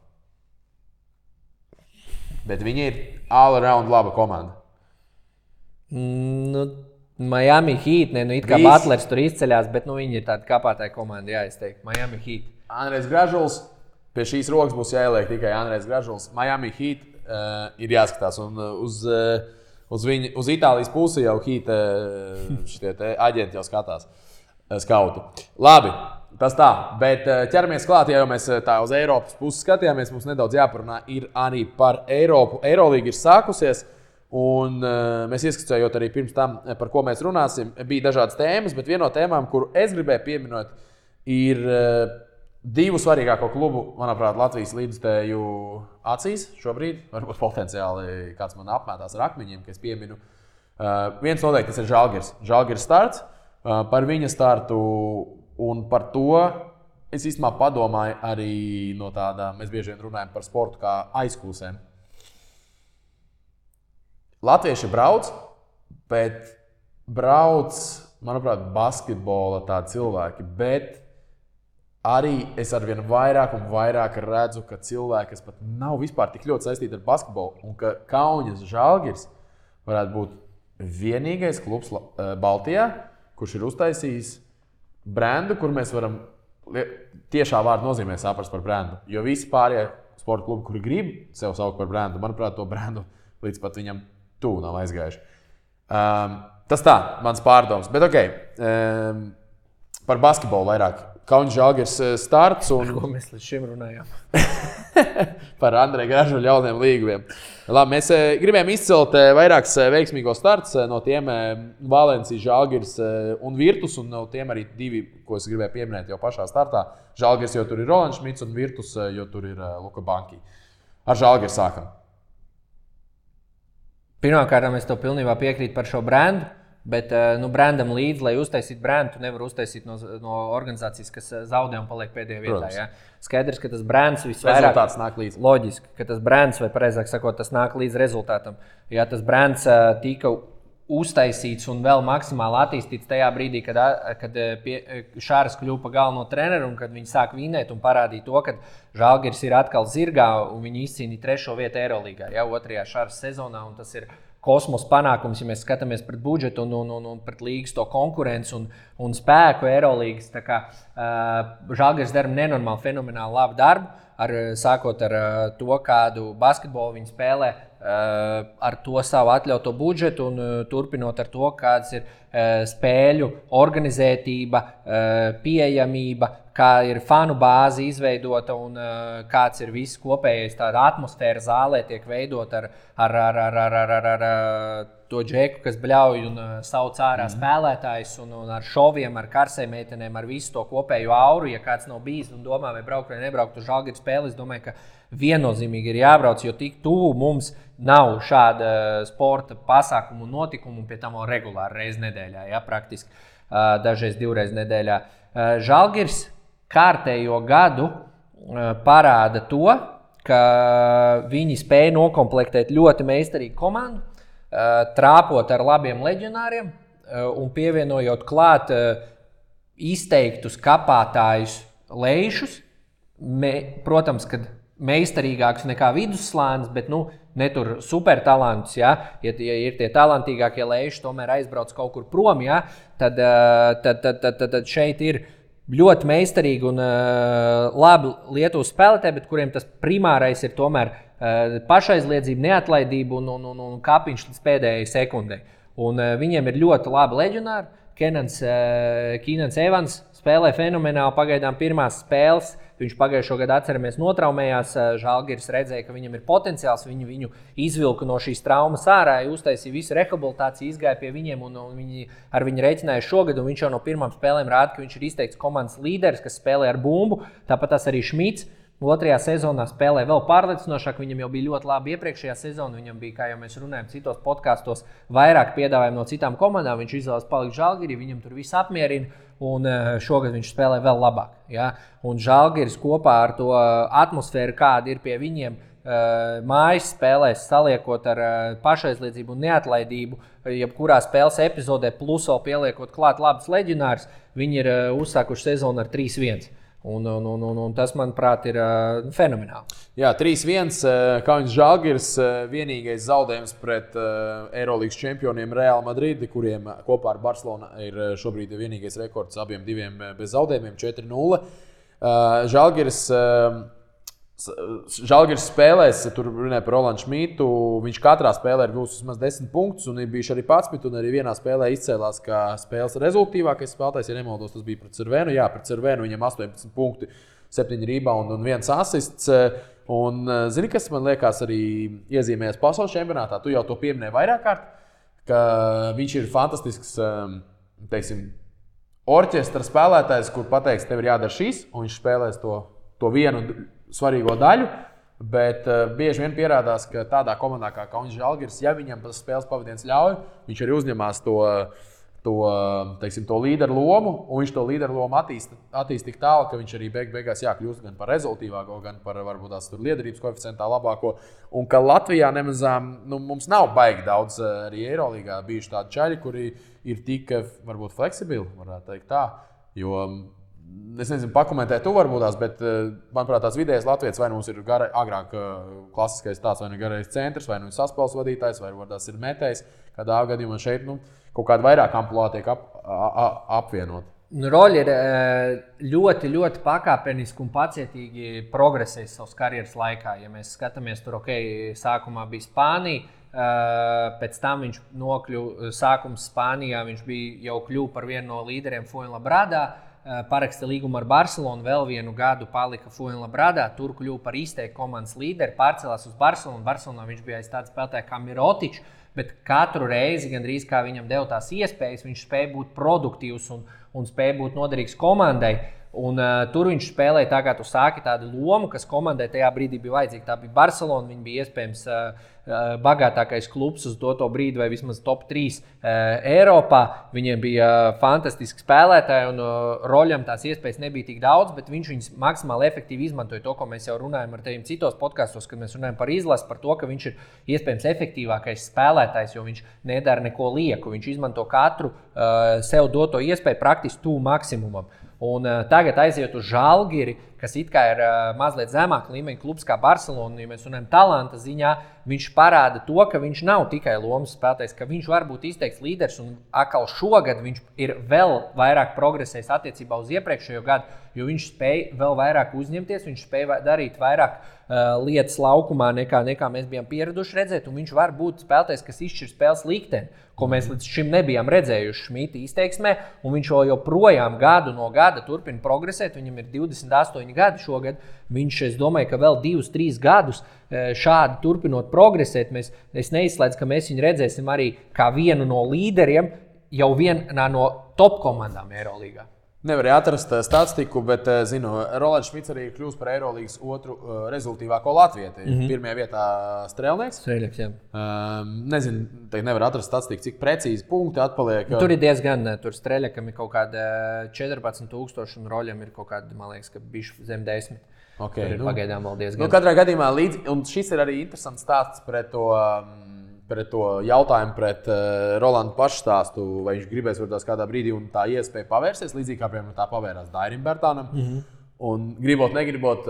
Bet viņi ir all-around laba komanda. Miami Heat, it kā Butlers tur izceļās, bet viņi ir tāda kapātāja komanda, jā, es teiktu. Miami Heat. Andrejs Gražuls. Pie šīs rokas būs jāieliek tikai Andrejs Gražuls. Miami Heat ir jāskatās. Un uz Itālijas pusi jau Heat šitie aģenti jau skatās. Skauti. Labi, tas tā. Bet ķeramies klāt, ja jau mēs tā uz Eiropas pusi skatījāmies, mums nedaudz jāparunā ir arī par Eiropu. Eirolīga ir sākusies. Un mēs ieskicējot arī pirms tam, par ko mēs runāsim, bija dažādas tēmas, bet viena no tēmām, kuru es gribēju pieminēt, ir divu svarīgāko klubu, manuprāt, Latvijas līdzstēju acīs šobrīd. Varbūt potenciāli kāds man apmētās ar akmeņiem, ka es pieminu. Viens noteikti tas ir Žalgiris. Žalgiris starts. Par viņa startu un par to es īstenībā padomāju arī no tādām, mēs bieži vien runājam par sportu kā aizkūsēm. Latvieši brauc, bet brauc, manuprāt, basketbola tādi cilvēki, bet arī es arvien vairāk un vairāk redzu, ka cilvēki, kas pat nav vispār tik ļoti saistīti ar basketbolu, un ka Kaunas Žalgiris varētu būt vienīgais klubs Baltijā, kurš ir uztaisījis brendu, kur mēs varam tiešā vārda nozīmē saprast par brendu. Jo visi pārējie sporta klubi, kuri grib sev saukt par brendu, manuprāt, to brendu līdz pat viņam tuvu nav aizgājuši. Tas tā, mans pārdoms. Bet par basketbolu vairāk. Kaunas Žalgiris starts un... Par ko mēs līdz šim runājām? Par Andreju Gražuļu jauniem līgumiem. Labi, mēs gribējām izcelt vairākus veiksmīgos starts, no tiem Valencia, Žalgiris un Virtus, un no tiem arī divi, ko es gribēju pieminēt jau pašā startā. Žalgiris, jo tur ir Rolands Šmits, un Virtus, jo tur ir Luka Banki. Ar Žalgiris sākam. Pirmkārt, es tev pilnībā piekrītu par šo brendu, bet brendam līdzi, lai uztaisītu brendu, tu nevar uztaisīt no organizācijas, kas zaudē un paliek pēdējā vietā. Ja? Skaidrs, ka tas brands visvairāk... Rezultāts nāk līdzi. Loģiski, ka tas brands, vai pareizāk sakot, tas nāk līdz rezultātam. Ja tas brands tika uztaisīts un vēl maksimāli attīstīts tajā brīdī, kad Šārs kļuva par galveno treneru un kad viņi sāk vinēt un parādīja to, ka Žalgiris ir atkal zirgā un viņi izcīnīja 3. vietu Eirolīgā, ja, 2. Šārs sezonā, un tas ir kosmos panākums, ja mēs skatāmies pret budžetu un pret līgas to konkurenci un spēku Eirolīgas. Tā kā Žalgiris dara nenormāli fenomenāli labu darbu, sākot ar to, kādu basketbolu viņi spēlē, ar to savu atļauto budžetu un turpinot ar to, kādas ir spēļu organizētība, pieejamība, kā ir fanu bāze izveidota un kāds ir viss kopējais tāda atmosfēra zālē tiek veidot ar to džeku, kas bļauj un sauc ārā spēlētājs un ar šoviem, ar karsēm meitenēm, ar visu to kopējo auru. Ja kāds nav bijis un domā, vai braukt vai nebraukt uz Žalgiris spēli, es domāju, ka viennozīmīgi ir jābrauc, jo tik tuvu mums nav šāda sporta pasākumu un notikumu, pie tam vēl regulāri reizi nedēļā, ja, praktiski dažreiz 2 reizes nedēļā. Žalgiris kārtējo gadu parāda to, ka viņi spēja nokomplektēt ļoti meistarīgu komandu, trāpot ar labiem leģionāriem un pievienojot klāt izteiktus kapātājus lejšus. Protams, kad meistarīgāks nekā vidusslānis, bet ne tur supertalantus. Ja ir tie talantīgākie lejši, tomēr aizbrauc kaut kur prom, tad šeit ir ļoti meistarīgi un labi Lietuvas spēlētāji, bet kuriem tas primārais ir tomēr pašaizliedzība, neatlaidība un kāpiņš līdz pēdējai sekundei. Un viņiem ir ļoti labi leģionāri. Keenans Evans spēlē fenomenāli pagaidām pirmās spēles. Viņš pagājušo gadu, atceramies, notraumējās. Žalgiris redzēja, ka viņam ir potenciāls. Viņu izvilka no šīs traumas ārā, uztaisīja visu rehabilitāciju, izgāja pie viņiem un viņi ar viņu rēķināja šogad. Un viņš jau no pirmām spēlēm rāda, ka viņš ir izteikts komandas līderis, kas spēlē ar bumbu. Tāpat tas arī Šmits. Otrajā sezonā spēlē vēl pārliecinošāk. Viņam jau bija ļoti labi iepriekšējā sezona. Viņam bija, kā jau mēs runājam, citos podkastos, vairāk piedāvājumu no citām komandām. Viņš izvēlas palikt Žalgirī, viņam tur viss apmierina. Un šogad viņš spēlē vēl labāk. Ja? Un Žalgiris kopā ar to atmosfēru, kāda ir pie viņiem, mājas spēlēs, saliekot ar pašaizliedzību un neatlaidību, jebkurā spēles epizodē, plus vēl pieliekot klāt labus leģionārus, viņi ir uzsākuši sezonu ar 3-1. Un tas, manuprāt, ir fenomenāli. Jā, 3-1. Kaunis Žalgiris vienīgais zaudējums pret Eirolīgas čempioniem Real Madridi, kuriem kopā ar Barcelonu ir šobrīd vienīgais rekords abiem diviem bez zaudējumiem 4-0. Žalgiris spēlēs, tur runāja par Rolandu Šmitu, viņš katrā spēlē ir gūs vismaz 10 punktus un ir bijuši arī 11, un arī vienā spēlē izcēlās kā spēles rezultīvākais spēlētājs, ja nemaldos, tas bija pret Cervenu. Jā, pret Cervenu viņam 18 punkti, 7 rebound un 1 asists. Un zini, kas man liekas arī iezīmējas pasaules čempionātā, tu jau to pieminēji vairāk kārt, ka viņš ir fantastisks, teiksim, orķestra spēlētājs, kur pateiks, tev ir jādara šīs, un viņš spēlēs to vienu svarīgo daļu, bet bieži vien pierādās, ka tādā komandā kā Kaunis Žalgiris, ja viņam tas spēles pavadiens ļauj, viņš arī uzņemās to līderu lomu, un viņš to līderu lomu attīst tik tālu, ka viņš arī beigās kļūst gan par rezultīvāko, gan par varbūt tās liederības koeficientā labāko. Un ka Latvijā nemazām, mums nav baigi daudz arī Eirolīgā bijuši tādi čaļi, kuri ir tik varbūt fleksibili, varētu teikt tā, jo es nezinu, pakomentēt tu varbūt tās, bet, manuprāt, tās vidējais latvietis vai mums ir agrāk klasiskais tāds, vai nu garais centrs, vai nu saspēles vadītājs, vai varbūt tās ir metējs. Kādā gadījumā šeit kaut kāda vairāk amplitūda tiek apvienot. Roļi ir ļoti, ļoti pakāpeniski un pacietīgi progresējis savas karjeras laikā. Ja mēs skatāmies, tur sākumā bija Spānija, pēc tam viņš nokļuva sākums Spānijā, viņš bija jau kļuva par vienu no līderiem Fuenlabradā. Paraksta līgumu ar Barcelonu, vēl vienu gadu palika Fuenlabradā, tur kļuva par izteiktu komandas līderi, pārcēlās uz Barcelonu. Barcelonā viņš bija aiz tāda spēlētāja kā Mirotičs, bet katru reizi, gandrīz kā viņam deva tās iespējas, viņš spēja būt produktīvs un spēja būt noderīgs komandai. Un tur viņš spēlēja, tā kā tu sāki, tādu lomu, kas komandai tajā brīdī bija vajadzīga. Tā bija Barcelona, viņa bija iespējams bagātākais klubs uz to brīdi, vai vismaz top 3 Eiropā. Viņiem bija fantastiski spēlētāji, un Roļam tās iespējas nebija tik daudz, bet viņš viņus maksimāli efektīvi izmantoja to, ko mēs jau runājam ar tevim citos podkastos, kad mēs runājam par izlasi, par to, ka viņš ir iespējams efektīvākais spēlētājs, jo viņš nedara neko lieku. Viņš izmanto katru sev doto iespēju praktiski tuvu maksimumam. Un tagad aiziet uz Žalgiri, kas it kā ir mazliet zemāk līmeņa klubs kā Barcelona, ja mēs runājam talanta ziņā, viņš parāda to, ka viņš nav tikai lomas spēlētājs, ka viņš var būt izteikts līderis, un atkal šogad viņš ir vēl vairāk progresējis attiecībā uz iepriekšējo gadu, jo viņš spēja vēl vairāk uzņemties, viņš spēja darīt vairāk lietas laukumā, nekā mēs bijām pieraduši redzēt, un viņš var būt spēlētājs, kas izšķir spēles likteni, ko mēs līdz šim nebijām redzējuši Šmita izteiksmē, un viņš joprojām gadu no gada turpina progresēt. Viņam ir 28 gadi šogad. Viņš, es domāju, ka vēl 2-3 gadus šādi turpinot progresēt, es neizslēdzu, ka mēs viņu redzēsim arī kā vienu no līderiem jau vienā no top komandām Eirolīgā. Nevarēja atrast statistiku, bet zinu, Rolands Šmits arī ir kļuvis par Eirolīgas otru rezultīvāko latvieti. Pirmajā vietā Strēlnieks. Jā. Nezinu, nevar atrast statistiku, cik precīzi punkti atpaliek. Tur ir diezgan, tur Strēlniekam ir kaut kāda 14,000 un Roļam ir kaut kāda, man liekas, ka bišķi zem 10. Okay, tur ir pagaidām vēl diezgan. Katrā gadījumā un šis ir arī interesants stāsts pret to jautājumu pret Rolandu pašu stāstu, vai viņš gribēs varbūt kādā brīdī un tā iespēja pavērsties, līdzīgi kā piemēram tā pavērās Dairim Bērtānam. Un gribot, negribot,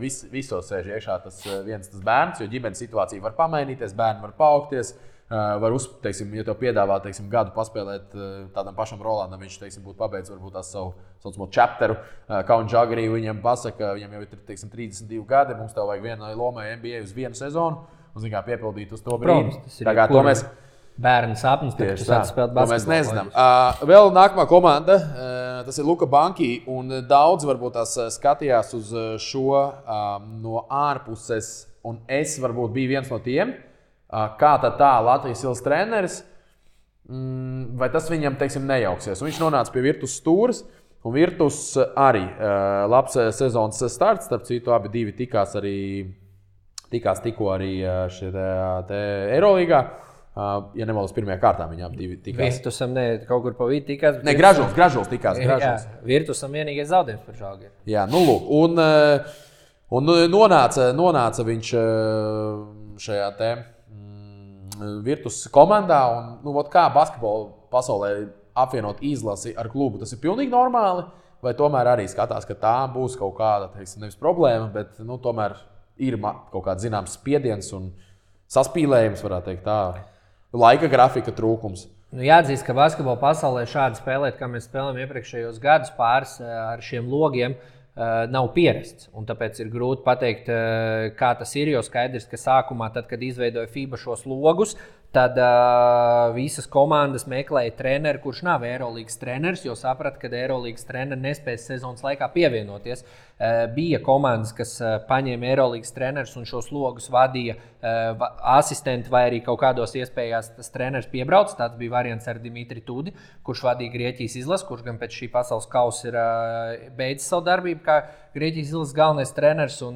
visos sēž iekšā tas bērns, jo ģimenes situācija var pamainīties, bērni var paaugties. Var teiksim, ja tev piedāvā gadu paspēlēt tādam pašam Rolandam, viņš teiksim, būtu pabeidzis varbūt tās savu saucamo chapteru. Kauns Žagarī viņam pasaka, viņam jau ir teiksim, 32 gadi, mums tev vajag vienai lomai NBA uz vienu sezonu, un kā piepildīt uz to brīdi. Tagad to mēs bērnu sapnis, to mēs nezinām. Vēl nākamā komanda, tas ir Luka Banki, un daudz varbūt tās skatījās uz šo no ārpuses, un es varbūt biju viens no tiem. Kā tad tā Latvijas Ilves treneris, vai tas viņam, teiksim, nejauksies. Un viņš nonāca pie Virtus stūres, un Virtus arī labs sezonas starts, starp citu abi divi tikās tikko arī šeit Eirolīgā. Ja nemaldos, pirmajā kārtā viņi abi divi tikās. Virtusam kaut kur pa vidu tikās. Ne, Gražuls tikās. Gražuls. Jā, Virtusam vienīgais zaudējums par Žalgiri. Jā, nu lūk. Un nonāca viņš šajā Virtus komandā, un kā basketbola pasaulē apvienot izlasi ar klubu, tas ir pilnīgi normāli, vai tomēr arī skatās, ka tā būs kaut kāda, teiksim, nevis problēma, bet tomēr ir kaut kāds zināms spiediens un saspīlējums, varētu teikt tā, laika grafika trūkums. Jāatzīst, ka basketbola pasaulē šādi spēlēt, kā mēs spēlējam iepriekšējos gadus pāris ar šiem logiem, nav pierasts. Un tāpēc ir grūti pateikt, kā tas ir. Jo skaidrs, ka sākumā, tad, kad izveidoja FIBA šos logus, tad visas komandas meklēja treneri, kurš nav Eirolīgas treneris, jo saprata, ka Eirolīgas treneri nespēs sezonas laikā pievienoties. Bija komandas, kas paņēma Eirolīgas trenerus un šos logus vadīja asistenti vai arī kaut kādos iespējās tas treneris piebrauc. Tāds bija variants ar Dimitri Tudi, kurš vadīja Grieķijas izlasi, kurš gan pēc šī pasaules kausa ir beidzis savu darbību kā Grieķijas izlases galvenais treneris, un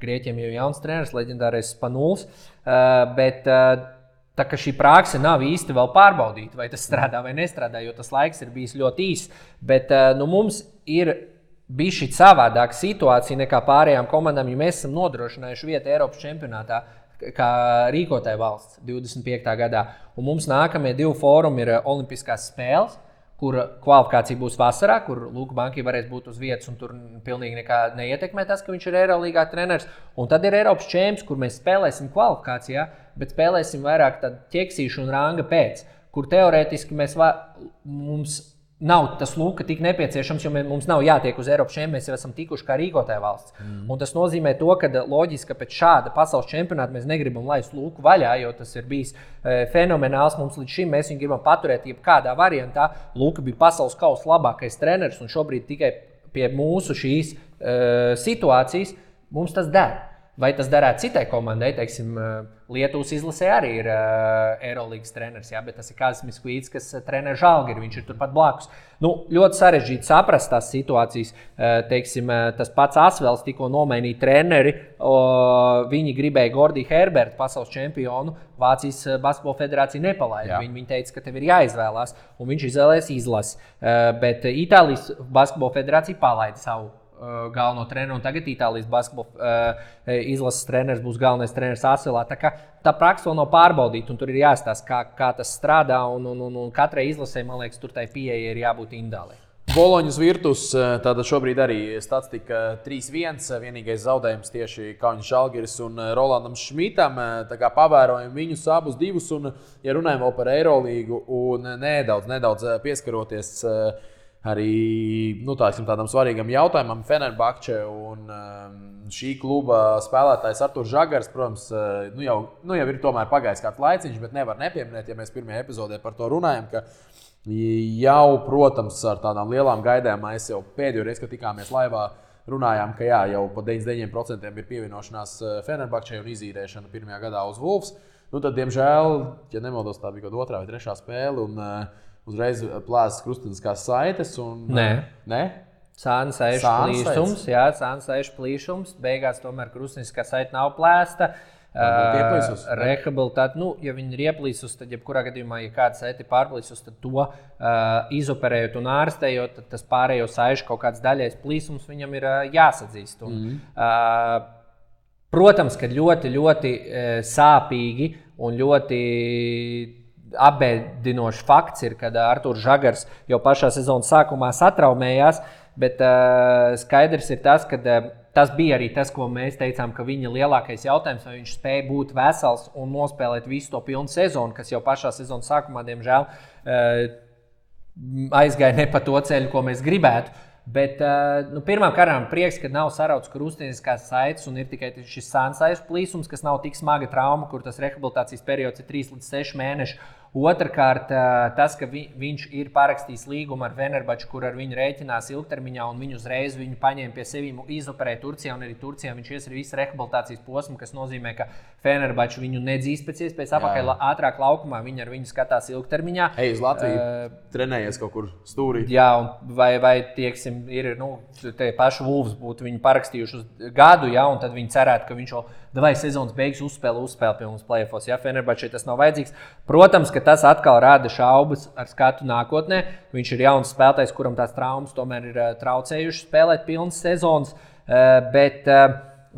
Grieķiem jau jauns treneris, leģendārais Spanuls. Bet tā kā šī prakse nav īsti vēl pārbaudīta, vai tas strādā vai nestrādā, jo tas laiks ir bijis ļoti īss. Bet mums ir bijusi savādāka situācija nekā pārējām komandām, jo mēs esam nodrošinājuši vietu Eiropas čempionātā kā rīkotāja valsts 25. gadā. Un mums nākamie 2 fórumi ir Olimpiskās spēles, kur kvalifikācija būs vasarā, kur Luka Banki varēs būt uz vietas, un tur pilnīgi nekā neietekmē tas, ka viņš ir Eirolīgā treneris. Un tad ir Eiropas čemps, kur mēs spēlēsim kvalifikācijā, bet spēlēsim vairāk ķeksīšu un ranga pēc, kur teorētiski mums nav tas Luka tik nepieciešams, jo mums nav jātiek uz Eiropas čempionu, mēs jau esam tikuši kā rīkotāja valsts. Un tas nozīmē to, ka loģiski, ka pēc šāda pasaules čempionāta mēs negribam laist Luku vaļā, jo tas ir bijis fenomenāls mums līdz šim. Mēs viņu gribam paturēt jebkādā variantā. Luka bija pasaules kausa labākais treneris, un šobrīd tikai pie mūsu šīs situācijas mums tas der. Vai tas darētu citai komandai, teiksim, Lietuvas izlasē arī ir Eirolīgas treneris, jā, bet tas ir Kazis Miskvīts, kas trener Žalgiri, viņš ir turpat blakus. Ļoti sarežģīti saprast tās situācijas. Teiksim, tas pats Asvels tikko nomainīja treneri, viņi gribēja Gordiju Herbertu, pasaules čempionu, Vācijas basketbola federācija nepalaida. Viņi teica, ka tev ir jāizvēlās, un viņš izvēlējās izlasi. Bet Itālijas basketbola federācija palaida savu galveno treneru, un tagad Itālijas basketbola izlases treneris būs galvenais treneris Asvelā. Tā praksa vēl nav pārbaudīta, un tur ir jāstāsta, kā tas strādā, un katrai izlasē, man liekas, tur tai pieeja ir jābūt individuālai. Boloņas Virtus, tāda šobrīd arī statistika 3-1, vienīgais zaudējums tieši Kaunis Žalgiris un Rolandam Šmitam. Tā kā pavērojam viņus abus divus, un ja runājam vēl par Eirolīgu un nedaudz pieskaroties arī tādam svarīgam jautājumam, Fenerbahče un šī kluba spēlētājs Arturs Žagars, protams, jau ir tomēr pagājis kāds laiciņš, bet nevar nepieminēt, ja mēs pirmajā epizodē par to runājam, ka jau, protams, ar tādām lielām gaidām mēs jau pēdējo reizi, kad tikāmies laivā, runājām, ka jau pa 99% ir pievienošanās Fenerbahčei un izīrēšana pirmajā gadā uz Wolves. Tad, diemžēl, ja nemaldos, tā bija kaut 2. vai 3. spēle, un uzreiz plēsas krusteniskās saites. Nē? Sāna saišu plīšums. Beigās tomēr krusteniskā saite nav plēsta. Rehabilitāti, ja viņi ir ieplīsus, tad jebkurā gadījumā, ja kāds saiti pārplīsus, tad to izoperējot un ārstējot, tad tas pārējo saišu kaut kāds daļais plīsums viņam ir jāsadzīst. Protams, ka ļoti, ļoti sāpīgi un ļoti apbēdinošs fakts ir, kad Artūrs Žagars jau pašā sezonas sākumā satraumējās, bet skaidrs ir tas, ka tas bija arī tas, ko mēs teicām, ka viņa lielākais jautājums, vai viņš spēja būt vesels un nospēlēt visu to pilnu sezonu, kas jau pašā sezonas sākumā, diemžēl, aizgāja ne pa to ceļu, ko mēs gribētu. Bet pirmām kārtām prieks, ka nav sarauts krustiniskās saites un ir tikai šis sānsaišu plīsums, kas nav tik smaga trauma, kur tas rehabilitācijas periods ir 3 līdz 6 mēneši. Otrakārt, tas, ka viņš ir parakstījis līgumu ar Fenerbahču, kur ar viņu rēķinās ilgtermiņā, un viņu uzreiz viņu paņēma pie sevi izoperēja Turcijā, un arī Turcijā viņš ies arī visu rehabilitācijas posmu, kas nozīmē, ka Fenerbahču viņu nedzīs pēc iespējas apakaļ ātrāk laukumā, viņi ar viņu skatās ilgtermiņā. Uz Latviju trenējies kaut kur stūrī. Jā, un vai tieksim, ir, te paši Wolves būtu viņu parakstījuši uz gadu, ja, un tad viņi cerētu, ka viņš jau sezonas beigas uzspēlē pie mums play-offos. Ja Fenerbahčai tas nav vajadzīgs. Protams, ka tas atkal rada šaubas ar skatu nākotnē. Viņš ir jauns spēlētājs, kuram tās traumas tomēr ir traucējušas spēlēt pilnas sezonas, bet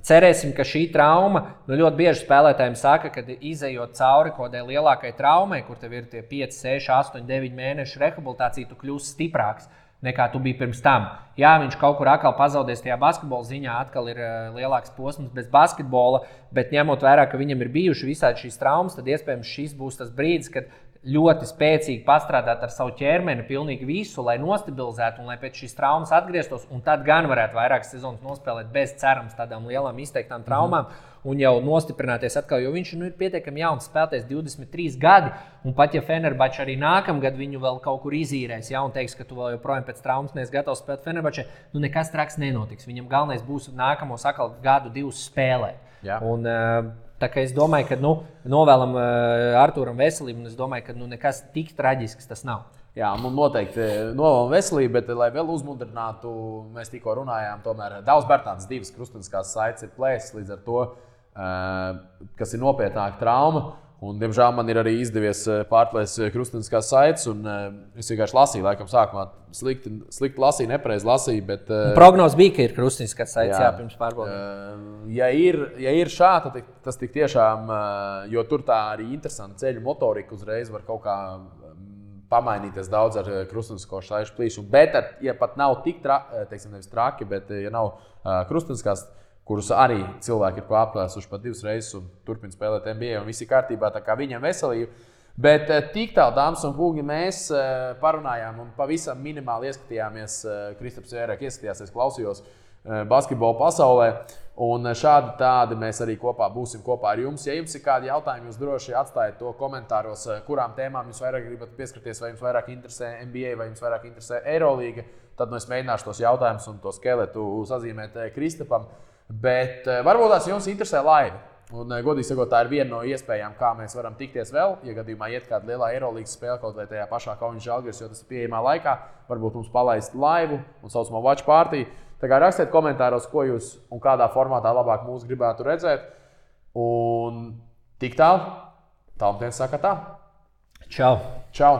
cerēsim, ka šī trauma, ļoti bieži spēlētājiem saka, ka izejot cauri kodai lielākai traumai, kur tev ir tie 5, 6, 8, 9 mēnešu rehabilitācija, tu kļūsi stiprāks nekā tu biji pirms tam. Jā, viņš kaut kur atkal pazaudēs tajā basketbola ziņā, atkal ir lielāks posms bez basketbola, bet ņemot vērā, ka viņam ir bijuši visādi šīs traumas, tad iespējams šis būs tas brīdis, kad ļoti spēcīgi pastrādāt ar savu ķermeni pilnīgi visu, lai nostabilizētu un lai pēc šīs traumas atgrieztos, un tad gan varētu vairākas sezonas nospēlēt bez cerams tādām lielām izteiktām traumām un jau nostiprināties atkal, jo viņš ir pietiekami jauns spēlētājs, 23 gadi, un pat ja Fenerbahča arī nākamgad viņu vēl kaut kur izīrēs, ja, un teiks, ka tu vēl joprojām pēc traumas neesi gatavs spēlēt Fenerbahčai, nekas traks nenotiks. Viņam galvenais būs nākamos atkal gadu, 2 spēlēt. Jā. Un, tā kā es domāju, ka novēlam Artūram veselību, un es domāju, ka nekas tik traģisks tas nav. Jā, un noteikti novēlam veselību, bet, lai vēl uzmundrinātu, mēs tikko runājām, tomēr Davs Bērtāns 2 krustuniskās saites ir plēsis, līdz ar to, kas ir nopietnāka trauma. Un, diemžēl man ir arī izdevies pārplēst krustuniskās saites, un es vienkārši lasīju, laikam sākumā slikti lasīju, nepareizi lasīju, bet... Prognoz bija, ka ir krustuniskās saites, jā, pirms pārbaudījuma. Ja ir šāda, tad tas tik tiešām, jo tur tā arī interesanta ceļu motorika uzreiz var kaut kā pamainīties daudz ar krustunisko saišu plīšumu, bet, ja pat nav tik nevis traki, bet ja nav krustuniskās, kurus arī cilvēki ir pārplēsuši pat 2 reizes un turpina spēlēt NBA, un viss ir kārtībā, tā kā viņam veselība. Bet tik tālu, dāmas un kungi, mēs parunājām un pavisam minimāli ieskatījāmies, Kristaps vairāk ieskatījās, es klausījos basketbola pasaulē, un šādi tādi mēs arī būsim kopā ar jums. Ja jums ir kādi jautājumi, jūs droši atstājiet to komentāros, kurām tēmām jūs vairāk gribat pieskarties, vai jums vairāk interesē NBA, vai jums vairāk interesē Eirolīga, tad es mēģināšu tos jautājumus un to skeletu sazīmēt Kristapam. Bet varbūt tās jums interesē laiva. Un, godīgi sakot, tā ir viena no iespējām, kā mēs varam tikties vēl. Ja gadījumā iet kāda lielā Eirolīgas spēle kaut vai tajā pašā Kaunas Žalgiris, jo tas ir pieejamā laikā, varbūt mums palaist laivu un saucamo watch party. Tā kā rakstiet komentāros, ko jūs un kādā formātā labāk mūs gribētu redzēt. Un tik tālu, Talmtēns saka tā. Čau! Čau!